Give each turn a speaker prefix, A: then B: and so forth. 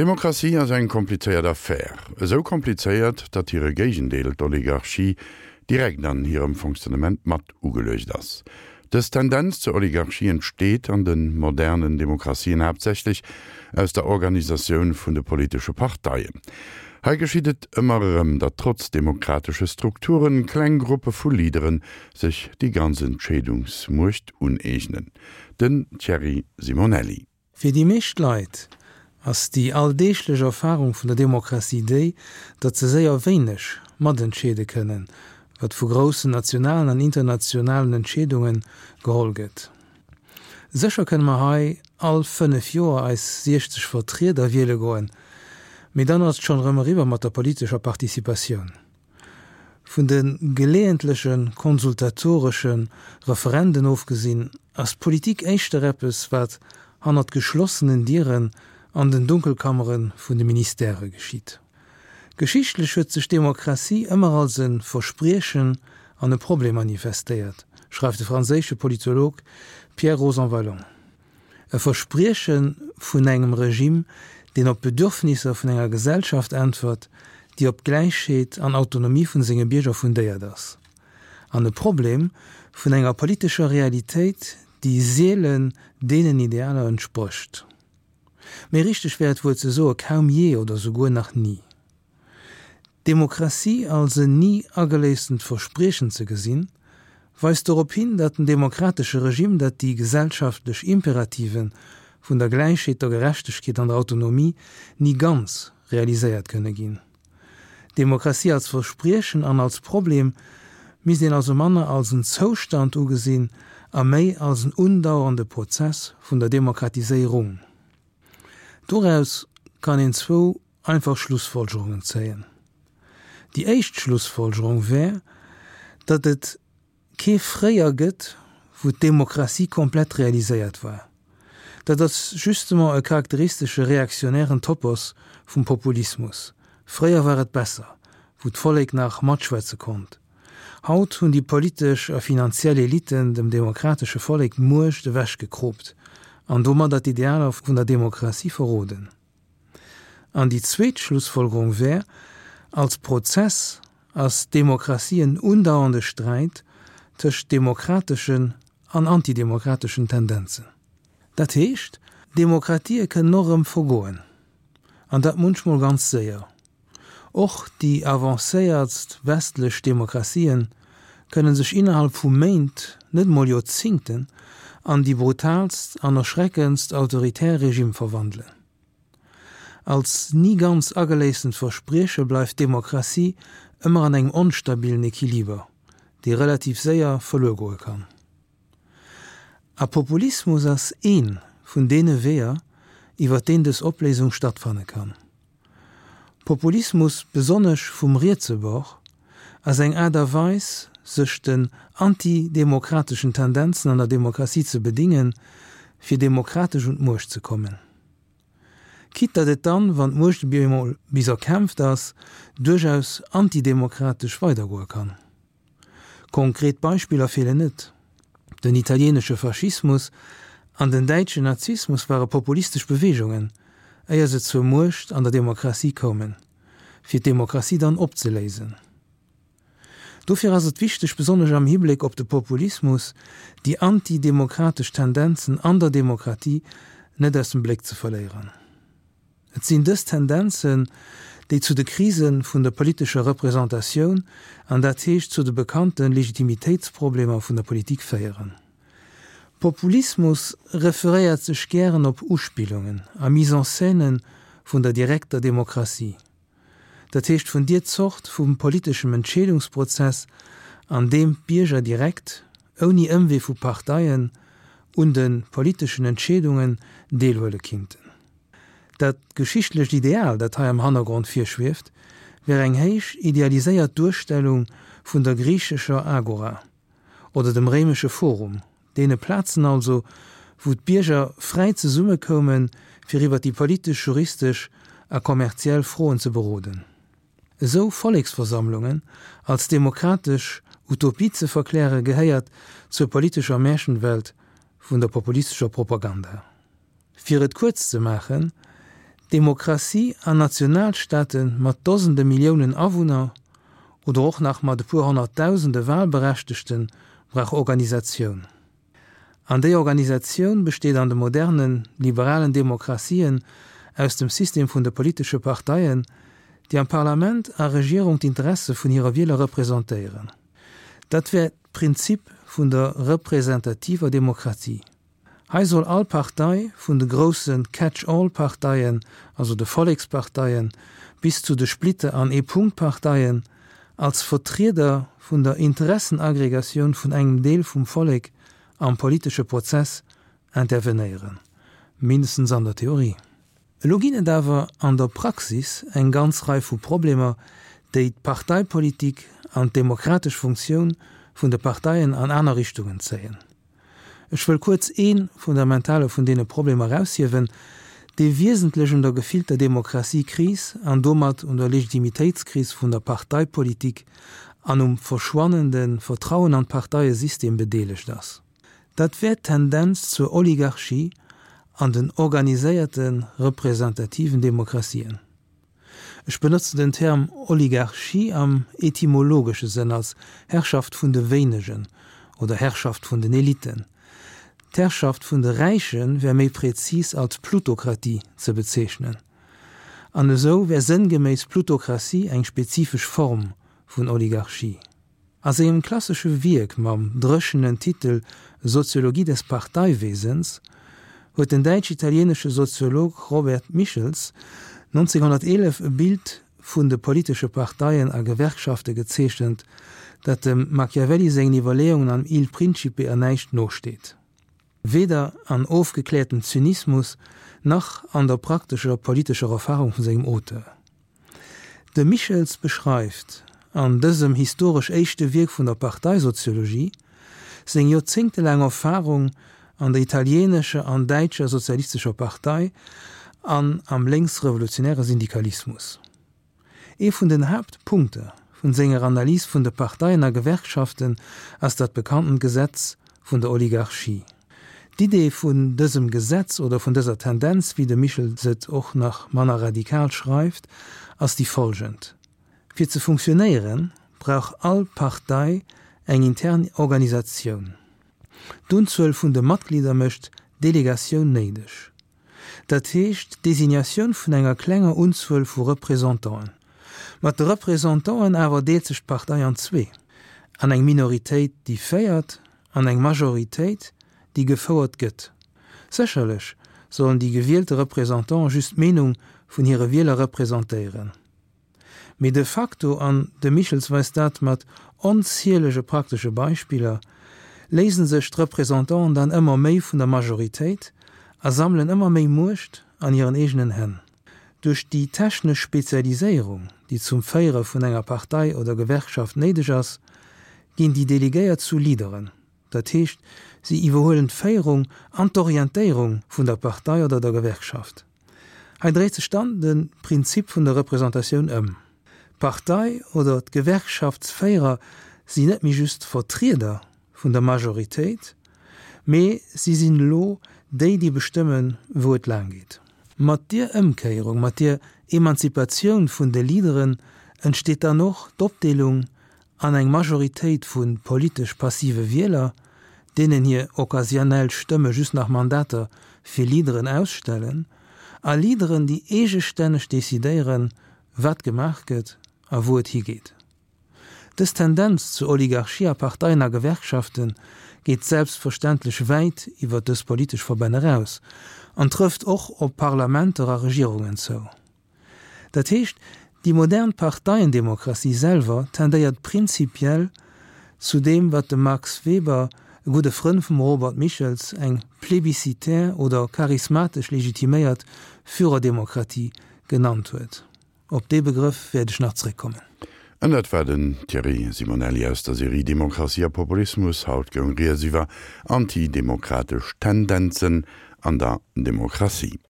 A: Demokratie ass eng komplizéiert Affär. Esou komplizéiert, datt hire Géigendeel, d'Oligarchie, direkt an hirem Fonctionnement mat ugeluecht ass. Dës Tendenz zur Oligarchie entsteet an de modernen Demokratien haaptsächlech aus der Organisatioun vun de politesche Parteien. Hei geschitt et ëmmer erëm, datt trotz demokratesche Strukturen kleng Gruppe vu Leadere sech déi ganz Entscheedungsmuecht uneegnen. Den Thierry Simonelli.
B: Fir déi meescht Leit ass déi alldeeglech Erfarung vun der Demokratie déi, datt se séier wéineg matentscheede kënnen, wat vu groussen nationalen an internationalen Entscheedunge geholl gëtt. Sécher kënne mer hei all 5 Joer eis 60 Vertrieder wiele goen, mee dann ass et schonn erëm eriwwer mat der politescher Participatioun. Vun de geleeëntleche konsultatoresche Referenden ofgesinn, ass d'Politik éischter eppes, wat hannert geschlossenen Dieren an den Dunkelkammere vun de Ministèrë geschitt. Geschichtlech huet sech d'Demokratie ëmmer als e Verspriechen an e Problem manifestéiert, schreift de franséische Politolog Pierre Rosanvallon. E Versprieche vun engem Regime, deen op d'Bedürfnisser vun enger Gesellschaft äntwert, déi op Gläichheet an Autonomie vun senge Bierger fundéiert ass. An e Problem vun enger politescher Realitéit, déi seelen deenen Idealer entsprécht. Méi richteg wär et wuel ze soe kaum jee oder souguer nach ni. D'Demokratie als en ni ageléisstent Verspriechen ze gesinn, weist dorop hin, datt den demokratesche Regime, dat déi gesellschaftlech Imperative vun der Gläichheet, der Gerechtegkeet an der Autonomie ni ganz realiséiert kënne ginn. D'Demokratie als Verspriechen an als Problem misst een also manner als en Zoustand ugesinn a méi als en undauernde Prozess vun der Demokratiséierung. Doraus kann een zwou einfach Schlussfolgerungen zéien. Déi éischt Schlussfolgerung wär, datt et kee Fréier gëtt, wou d'Demokratie komplett realiséiert war. Dat ass justement e charakteristesche reaktionären Topos vum Populismus, Fréier war et besser, wou d'Vollek nach matschwätze konnt. Haut hunn déi politesch a finanziell Eliten dem demokratesche Vollek d'Muecht ewechgekroopt an domadder d'Idealer vun der Demokratie verroden. An déi zweet Schlussfolgerung wär, Als Prozess ass d'Demokratie en undauernde Sträit tëscht demokrateschen an antidemokrateschen Tendenzen. Dat heescht, Demokratië kënnen och erëm vergoen, an dat munchmol ganz séier. Och déi avancéiertst westlech Demokratien kënnen sech innerhalb vu Méint, net mol Joerzingten, an déi brutaalst an erschreckendst autoritär Regime verwandelen. Als ni ganz ageléissent Versprieche bleift d'Demokratie ëmmer an engem onstabilen Equiliber, dee relativ séier verluer goe kann. A Populismus ass ee vun deene Weeër, iwwer deen dës Opléisung stattfanne kann. Populismus, besonnesch vum rietse Bord, ass eng Aart a Weis, sech den antidemokrateschen Tendenzen an der Demokratie ze bedingen, fir demokratesch un d'Muecht ze kommen. Quitte datt et dann, wann d'Muecht emol bis erkämpft ass, duerchaus antidemokratesch weidergoe kann. Konkret Beispiller feelen net. Den italienesche Faschismus an den däitschen Nazismus ware populistesch Beweegungen, éier se zur Muecht an der Demokratie koumen, fir d'Demokratie dann opzeléisen. Dofir ass et wichteg, besonnesch am Hibléck op de Populismus, déi antidemokratesch Tendenzen an der Demokratie net aus dem Bléck ze verléieren. Et sinn dës Tendenzen, déi zu de Krise vun der politescher Representatioun, an dat heescht zu de bekannte Legitimitéitsproblemer vun der Politik féieren. Populismus referéiert sech gären op Uspillungen a Mise-en-scène vun der direkter Demokratie, dat heescht vun dier Zort vu politeschem Entscheedungsprozess, an deem d'Bierger direkt, ouni Ëmwee vu Parteien, un de politeschen Entscheedungen deelhuele kinnten. Dat geschichtlecht Ideal, dat hei am Hannergrond virschwieft, wär eng héich idealiséiert Duerstellung vun der griichescher Agora oder dem réimesche Forum, deene Plazen also, wou d'Bierger fräi zesummekoumen, fir iwwer déi politesch, juristesch a kommerziell Froen ze beroden. Esou Volleksversammlungen als demokratesch Utopie ze verkläre gehéiert zur politescher Märchenwelt vun der populistescher Propaganda. Fir et kuerz ze maachen, Demokratie an Nationalstaate mat Dosende Milliounen Awunner oder och nach mat e puer Honnertdausende Wahlberechtegte brauch Organisatioun. An déi Organisatioun besteet an de modernen, liberalen Demokratien aus dem System vun de politesche Parteien, déi am Parlament a Regierung d'Interesse vun hire Wieler representéieren. Dat wär d'Prinzip vun der representativer Demokratie. Hei soll all Partei, vun de grousse Catch-all-Parteien, also de Volleksparteien, bis zu de Splitter an Ee-Punkt-Parteien, als Vertrieder vun der Interessenaggregatioun vun engem Deel vum Vollek am politesche Prozess intervenéieren, mindestens an der Theorie. Elo ginn et awer an der Praxis eng ganz Rei vu Problemer, déi d'Parteipolitik an d'demokratesch Funktioun vun de Parteien an aner Richtungen zéien. Ech wëll kuerz ee fundamentale vun deene Problemer eraushiewen, dee wiesentlech un der gefillter Demokratiekris an domat un der Legitimitéitskris vun der Parteipolitik an um verschwannende Vertrauen an d'Parteiesystem bedeelegt ass. Dat wär d'Tendenz zur Oligarchie an den organiséierte representativen Demokratien. Ech benotzen den Term Oligarchie am etymologesche Sënn als Herrschaft vun de Wéinegen oder Herrschaft vun den Eliten. D'Herrschaft vun de Räiche wär méi prezis als Plutokratie ze bezeechnen. An esou wär sënngeméiss Plutokratie eng spezifesch Form vun Oligarchie. A sengem klassesche Wierk mam dréchenen Titel Soziologie des Parteiwesens huet den däitsch-italieenesche Soziolog Robert Michels 1911 e Bild vun de politesche Parteien a Gewerkschafte gezeechent, dat dem Machiavelli sengen Iwwerleeungen am Il Principe an näischt nosteet. Weder an ofgekläertem Zynismus nach an der praktescher politescher Erfarung vun sengem Auteur. De Michels beschreift an dësem historesch éischte Wierk vun der Parteisoziologie seng joerzéngtelaang Erfarung an der italieenescher an däitscher sozialistescher Partei an am lénksrevolutionäre Syndikalismus. Ee vun den Haaptpunkter vun senger Analys vun de Parteien a Gewerkschaften ass dat bekanntent Gesetz vun der Oligarchie. D'Idee vun dësem Gesetz oder vun dëser Tendenz, wéi de Michels et och nach manner radikal schreift, ass déi folgend, Fir ze funktionéieren, brauch all Partei eng intern Organisatioun. D'Unzuel vun de Matglieder mécht Delegatioun néideg. Dat heescht d'Designatioun vun enger klenger Unzuel vu Représentanten. Mat de Représentanten awer deelt sech d'Partei an zwee, an eng Minoritéit déi féiert an eng Majoritéit déi gefouert gëtt. Sécherlech sollen déi gewielte Représentanten just d'Meenung vun hire Wieler representéieren. Mee de facto, an de Michels weist dat mat onzielege praktesche Beispiller, léisen sech d'Représentanten dann ëmmer méi vun der Majoritéit a sammelen ëmmer méi Muecht an hiren eegenen Hänn. Duerch déi technesch Spezialiséierung, déi zum Féiere vun enger Partei oder Gewerkschaft néideg ass, ginn déi Delegéiert zu Leaderen, dat heescht, si iwwerhuelen d'Féierung an d'Orientéierung vun der Partei oder der Gewerkschaft. Hei dréit sech dann de Prinzip vun der Representatioun ëm. D'Partei oder d'Gewerkschaftsféierer sinn net méi just Vertrieder vun der Majoritéit, mee si sinn elo déi, déi bestëmmen, wou et laang geet. Mat dier Ëmkéierung, mat dier Emanzipatioun vun de Leaderen entsteet dann och d'Opdeelung an eng Majoritéit vu politesch passive Wieler, deenen hir occasionnell Stëmme just nach Mandater fir Leaderen ausstellen, a Leaderen, déi eegestänneg decidéieren, wat gemaach gëtt a wou et higeet. Dës Tendenz zur Oligarchie a Parteien a Gewerkschafte geet selbstverständlech wäit iwwer dës politesch Verbänn eraus an trëfft och op Parlamenter a Regierungen zou. Dat heescht, déi modern Parteiendemokratie selwer tendéiert prinzipiell zu deem, wat de Max Weber, e gudde Frënn vum Robert Michels, eng plébiscitaire oder charismatesch legitiméiert Führerdemokratie genannt huet. Op dee Begrëff wäert ech nach zréckkommen.
A: An dat war den Thierry Simonelli aus der Serie Demokratie a Populismus. Haut goung Rieds iwwer antidemokratesch Tendenzen an der Demokratie.